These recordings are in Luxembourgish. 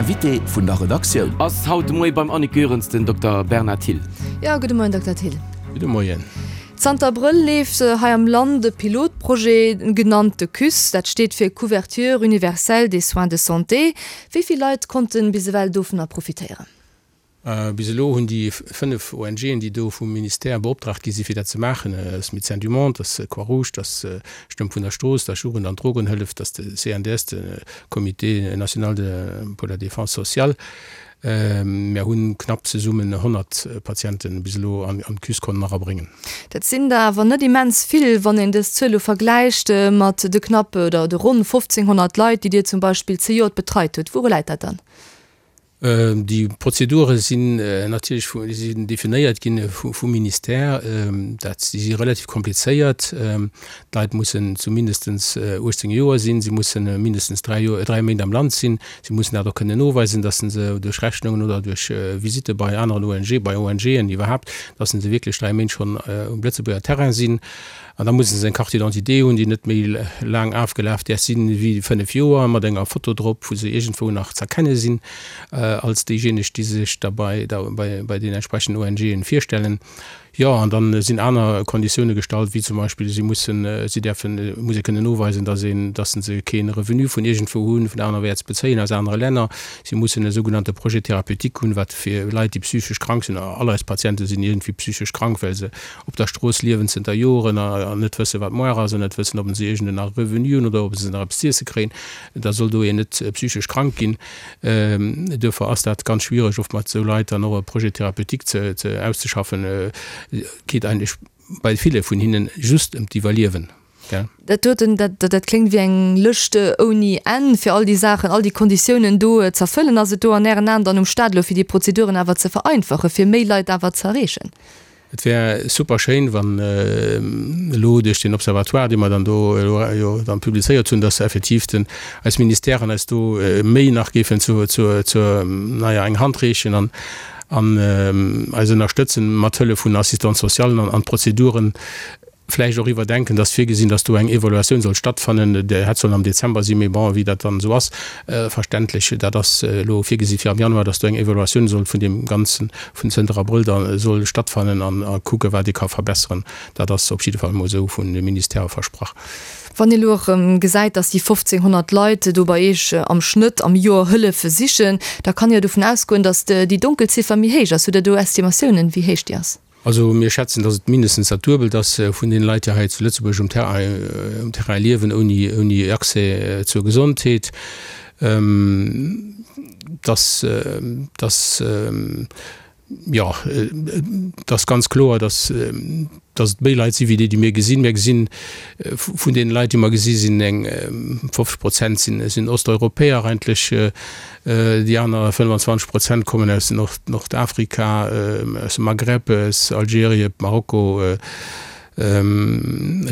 Invité vun der Redaktioun. Ass haut de Moie beim Annick Goerens den Dokter Bernard Thill. Jo, gudde Moien, Dokter Thill. Gudde Moien. Zanter Abrëll leeft hei am Land e Pilotprojet, genannt de CUSS. Dat steet fir Couverture universelle des soins de santé. Wéi vill Leit konnte bis ewell dovunner profitéieren? Bis elo hunn déi 5 ONGen, déi do vum Ministère beoptraagt gi si fir dat ze maachen, dat ass Médecins du Monde, dat ass Croix-Rouge, dat ass Stëmm vun der Strooss, dat ass Jugend an Drogenhëllef, dat ass de CNDS, de Comité national pour la défense sociale. Mär hunn knapp zesummen 100 Patienten bis elo an d'CUS konnen erabréngen. Dat sinn der awer net immens vill, wann een dës Zuel elo vergläicht mat de knapp oder de ronn 1.500 Leit, déi Dir zum Beispill zejoert betreit hutt. Wouru läit dat dann? Déi Prozedure sinn natierlech vu, sinn definéiert ginn vum Ministère. Dat, déi si relativ komplizéiert. D'Leit mussen zu mindestens 18 Joer sinn, si mussen mindestens 3 Joer, 3 Méint am Land sinn, si mussen dat och kënnen noweisen, dass se duerch Rechnungen oder duerch Visitte bei aneren ONG, bei ONGen iwwerhaapt, dass se wierklech 3 Méint schonn um Lëtzebuerger Terrain sinn. An da musse se eng Carte d'identité hunn, déi net méi laang afgelaf däerf sinn wéi 5 Joer, mat enger Foto drop, wou se iergendwou nach z'erkenne sinn als déijéineg, déi sech da bei bei den entsprechenden ONGen virstellen. Jo, an da sinn aner Konditioune gestallt, wéi zum Beispill, si mussen, si däerfen, muss ee kënnen noweisen, datt een, datt se kee Revenu vun iergendwou hunn, vun anerwäerts bezéien, aus anere Länner. Si mussen e sougenannte Projet thérapeutique hunn, wat fir Leit, déi psychesch krank sinn, all eis Patiente sinn iergendwéi psychesch krank, well se op der Strooss liewen zënter Joren an net wëssen, wat moar ass, an net wëssen, ob se iergend en Revenu hunn oder ob se nach eppes z'iesse kréien, da soll do een net psychesch krank ginn. Duerfir ass dat ganz schwiereg, oft mat esou Leit dann och e Projet thérapeutique ze, ze auszeschaffen. Et geet eigentlech bei ville vun hinnen just ëm d'Iwwerliewen. Dat doten, dat, dat kléngt wéi eng Lëscht ouni Enn, fir all déi Saachen, all déi Konditiounen do z'erfëllen. Ass et do an Ären Aen dann um Staat elo, fir déi Prozeduren awer ze vereinfachen, fir méi Leit awer z'erreechen? Et wär super schéin, wann elo duerch deen Observatoire, dee mer dann do elo jo dann publizéiert hunn, dass effektiv den, eis Ministèren eis do méi nach géifen zu, zu, zur, naja, eng Hand reechen an, an eis ënnerstëtzen mat Hëllef vun Assistante-socialen an, an d'Prozeduren vläicht och iwwerdenken, dass virgesinn, dass do eng Evaluatioun soll stattfannen, déi hätt sollen am Dezember sinn, mee bon, wéi dat dann esou ass, verständlech, dat ass elo virgesi fir am Januar, dass do eng Evaluatioun soll vun deem Ganzen vun zënter Abrëll da soll stattfannen an a kucke wat ee ka verbesseren. Dat ass op jidde Fall emol esou vun de Ministèrë versprach. Wann ee elo erëm gesäit, dass déi 1.500 Leit do bei Iech am Schnëtt am Joer Hëllef sichen, da kann ee jo dovun ausgoen, dass déi Donkelziffer méi héich ass. Hutt Der do Estimatiounen, wéi héich déi ass? Also mir schätzen, datt et mindestens dat Duebelt ass vun deene Leit, déi hei zu Lëtzebuerg um Terrain, um Terrain liewen, ouni, ouni Accès zur Gesondheet. Dass, dass, jo, et ass ganz kloer, datt, datt et méi Leit si wéi déi, déi mir gesinn. Mir gesinn, vun deene Leit, déi mer gesi sinn eng 50 Prozent sinn, sinn Osteuropäer eigentlech. Déi aner 25 Prozent kommen aus Nordafrika, aus dem Maghreb, aus Algerien, Marokko,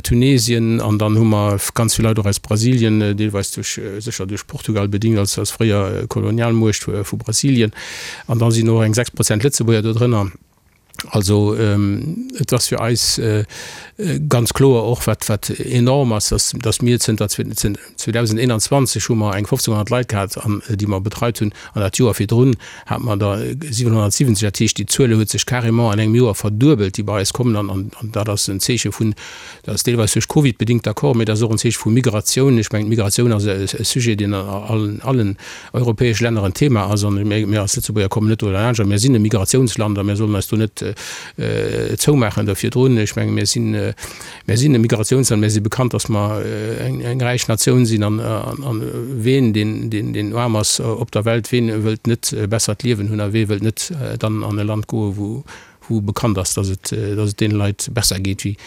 Tunesien an dann hu mer ganz vill Leit och aus Brasilien, deelweis duerch, sécher duerch Portugal bedingt als fréier Kolonialmuecht vu Brasilien. An da sinn och eng 6 Prozent Lëtzebuerger do drënner. Also et ass fir eis ganz kloer och, wat wat enorm ass, dass dass mir zënter 2021 hu mer eng 1.500 Leit gehat an déi mer betreit hunn an dat Joer virdrun hate mer der 770. Dat heescht, déi Zuele huet sech carrément an engem Joer verduebelt, déi bei eis kommen an an dat ass en Zeeche vun, dat ass deelweis duerch Covid bedingt, d'accord, mee dat ass och en Zeeche vu Migratioun. Ech mengen, d'Migratioun ass e Sujet, deen an allen allen europäesch Länner en Thema ass an mir als Lëtzebuerger kommen net do derlaanscht a mir sinn e Migratiounsland a mir sollen eis do net zoumaachen do virdrun. Ech menge mir sinn, mir sinn e Migratiounsland, mir si bekannt, datt mer eng eng räich Natioun sinn an an ween deen deen deen aarm ass op der Welt, ween wëllt net e bessert Liewen hunn a wee wëllt net dann an e Land goe wou wou bekannt ass, datt et datt et deene Leit besser geet wéi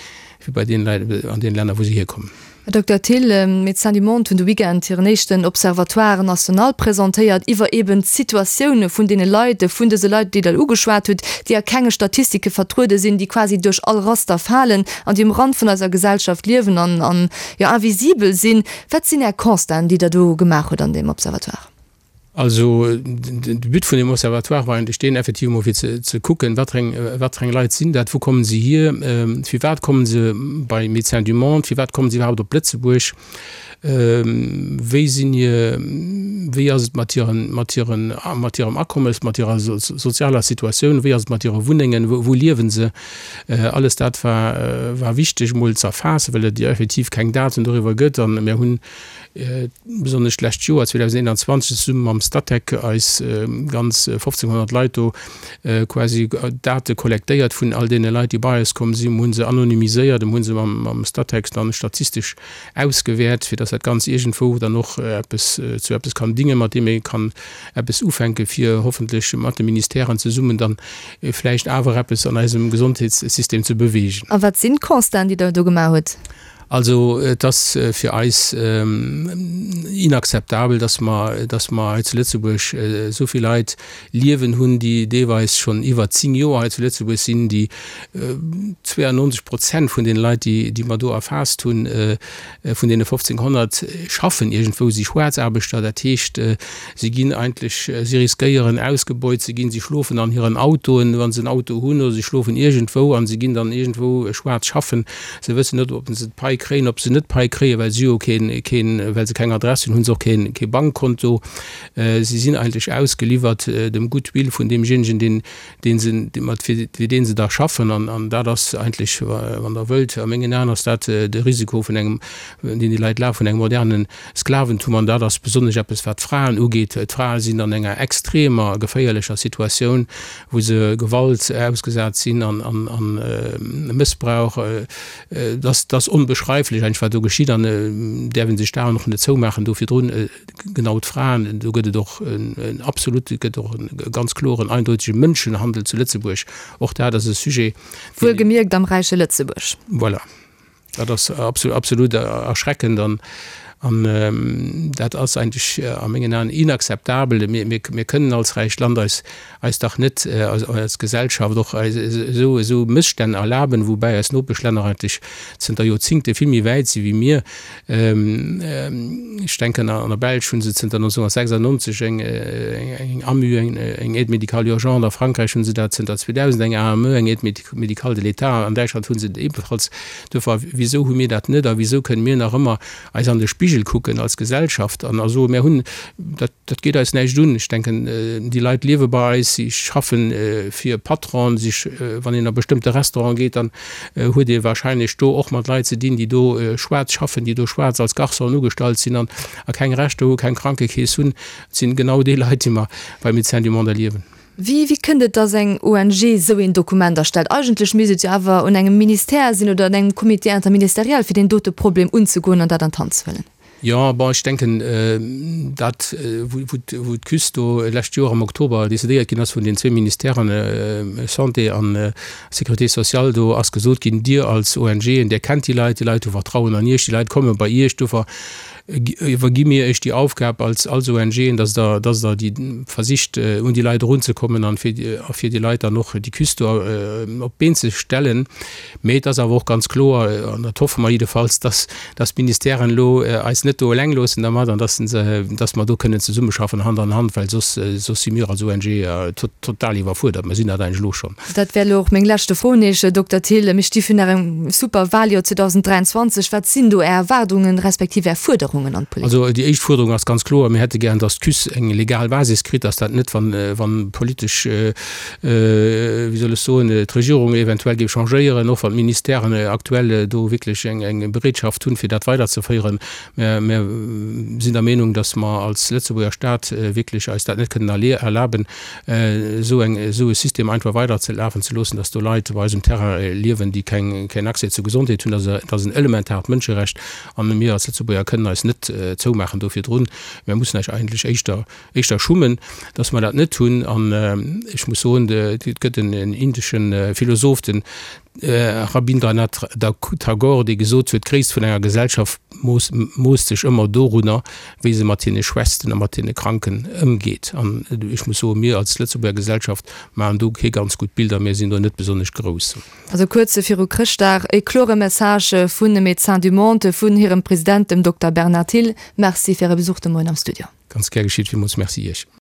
wéi bei deene Leit an deene Länner wou se hierkommen. Här Dokter Thill, Médecins du Monde hunn de Weekend hiren éischten Observatoire national presentéiert iwwer eben d'Situatioune vun deene Leit, vun dëse Leit, déi Der ugeschwat hutt, déi a kenge Statistike vertruede sinn, déi quasi duerch all Raster falen an déi um Rand vun eiser Gesellschaft liewen an, an, jo, invisibel sinn. Wat sinn Är Constaten, déi Der do gemaach hutt an deem Observatoire? Also de But vun deem Observatoire war eigentlech deen, effektiv emol fir ze kucken, wat fir eng, wat fir eng Leit sinn dat, wou kommen se hier, firwat kommen se bei Médecins du Monde, firwat kommen se iwwerhaapt op Lëtzebuerg, wéi sinn hir, wéi ass et mat hiren, mat hiren, mat hirem Akommes, mat hirer sozialer Situatioun, wéi ass et mat hire Wunnengen, wou liewen se. Alles dat war, war wichteg emol ze erfaassen, well et jo effektiv keng Daten doriwwer gëtt. An mir hunn besonnesch d'lescht Joer 2021 zesumme mam Statec eis ganz 1.500 Leit do quasi Date kollektéiert vun all deene Leit, déi bei eis komm sinn. Mir hu se anonymiséiert a mir hu se mam Statec dann statistesch ausgewäert, fir dass dat Ganzt iergendwou dann och eppes zu eppes kann dingen, mat deem ee kann eppes ufänken, fir hoffentlech mat de Ministèren zesummen dann vläicht awer eppes an eisem Gesondheetssystem ze beweegen. A wat sinn d'Constaten, déi Der do gemaach hutt? Also et ass fir eis inakzeptabel, dass mer, dass mer hei zu Lëtzebuerg esou vill Leit liewen hunn, déi deelweis schonn iwwer 10 Joer hei zu Lëtzebuerg sinn, déi 92 Prozent vun deene Leit, déi, déi mer do erfaasst hunn, vun deene 1.500, schaffen iergendwou, si Schwaarzaarbechter. Dat heescht, si ginn eigentlech, si riskéieren ausgebeut ze ginn, si schlofen an hiren Autoen, wa se en Auto hunn, oder si schlofen iergendwou a si ginn dann iergendwou schwaarz schaffen. Se wëssen net, ob se d'Pai kréien, ob se net d'Pai kréien, well si jo keen, keen, well se keng Adress hunn, hu se och keen, kee Bankkonto. Si sinn eigentlech ausgeliwwert dem Goodwill vun deemjéinegen, deen, dee se, mat fir, fir dee se da schaffen. An, an dat ass eigentlech, wann Der wëllt, a mengen Aen ass dat de Risiko vun engem, deen déi Leit lafen, vun engem moderne Sklaventum. An dat ass besonnesch eppes, wat d'Fraen ugeet. D'Frae sinn an enger extremer geféierlecher Situatioun, wou se Gewalt ausgesat sinn an Mëssbrauch, dat ass onbeschreiflech eigentlech, wat do geschitt an däerf ee sech d'Aen och net zoumaachen do virdrun. Genau d'Fraen, do gëtt et och en absolut, et gëtt och e ganz kloren, eindeutege Mënschenhandel zu Lëtzebuerg. Och dat ass e Sujet, deen. Wuelgemierkt am räiche Lëtzebuerg. Voilà. Dat ass absolut erschreckend an dat ass eigentlech a mengen Aen inakzeptabel. Mir kënnen als räicht Land eis eis dach net als Gesellschaft och esou esou Mësstänn erlaben, woubäi eis Nopeschlänner eigentlech zënter Joerzingte vill méi wäit si wéi mir. Ech denken, an der Belsch hu se zënter 1996 eng AMU, eng Aide médicale urgente, a Frankräich hu se dat zënter 2000, eng AME, eng Aide médicale de l'État, an Däitschland hu se et ebenfalls. Duerfir, wisou hu mir dat net a wisou kënne mir nach ëmmer eis an de Spigel kucken als Gesellschaft an a soen, mir hunn dat, dat geet eis näischt un. Ech denken, déi Leit liewe bei eis, si schaffe fir Patronen, si, wann een a bestëmmte Restauranten geet, dann huet ee wahrscheinlech do och mat Leit ze dinn, déi do schwaarz schaffen, déi do schwaarz als Garçonen ugestallt sinn an a keng Rechter hu, keng Krankekeess hunn. Et sinn genau déi Leit, déi mer bei Médecins du Monde erliewen. Wéi, wéi kënnt et, dass eng ONG esou een Dokument erstellt? Eigentlech misst et jo awer un engem Ministère sinn oder un engem Comité interministériel, fir deen dote Problem unzegoen an dat an d'Hand ze huelen. Jo, bon, ech denken, dat, wou d'KÜS do lescht Joer am Oktober decidéiert ginn ass vun den zwee Ministèren, Santé an Sécurité sociale, do ass gesot ginn, Dir als ONGen, Dir kennt déi Leit, déi Leit hu Vertrauen an Iech, déi Leit komme bei Iech, dofir iwwergi mir Iech déi Aufgab als ONGen, dass Der, dass Der déi versicht, un déi Leit erunzekommen an fir, a fir déi Leit dann och déi KÜS do op d'Been ze stellen. Mee et ass awer och ganz kloer, an dat hoffe mer jiddefalls, dass, dass d'Ministèren elo eis net do eleng loossen dermat an dass se, dass mer do kënnen zesummeschaffen, Hand an Hand, well soss, soss si mir als ONG total iwwerfuerdert. Mer sinn dat eigentlech elo schonn. Dat wär elo och meng leschte Fro un Iech, Dokter Thill. Mir sti virun engem super Wahljoer 2023. Wat sinn do Är Erwaardungen, respektiv Är Fuerderungen an d'Politik? Also déi éischt Fuerderung ass ganz kloer, Mir hätte gären, dass d'KÜS eng legal Basis kritt, dass dat net, wann, wann politesch, wéi soll ech soen, d'Regierung eventuell géif changéieren, och wann d'Ministèren aktuell do wierklech eng Bereetschaft hunn, fir dat weiderzeféieren. Mä mir sinn der Meenung, dass mer als Lëtzebuerger Stat wierklech eis dat net kënnen erlaben, esou eng, esou e System einfach weiderzelafen ze loossen, dass do Leit op eisem Terrain liewen, déi keng, keen Accès zur Gesondheet hunn. Dat ass en elementaart Mënscherecht a mir als Lëtzebuerger kënnen eis net zoumaachen do virdrun. Mir mussen eis eigentlech éischter, éischter schummen, dass mer dat net hunn. An ech muss soen, et gëtt en indesche Philosoph, den Rabindranath Tagore, dee gesot huet, D'Gréisst vun enger Gesellschaft moosst sech ëmmer dorunner, wéi se mat hine Schwächsten a mat hine Kranken ëmgeet. An ech muss soen, mir als Lëtzebuerger Gesellschaft maachen do kee ganz gutt Bild a mir sinn do net besonnesch grouss. Also kuerz viru Chrëschtdag e klore Message vun Médecins du Monde, vun hirem President, dem Dokter Bernard Thill. Merci fir Äre Besuch de Moien am Studio. Ganz gär geschitt. Villmools Merci Iech.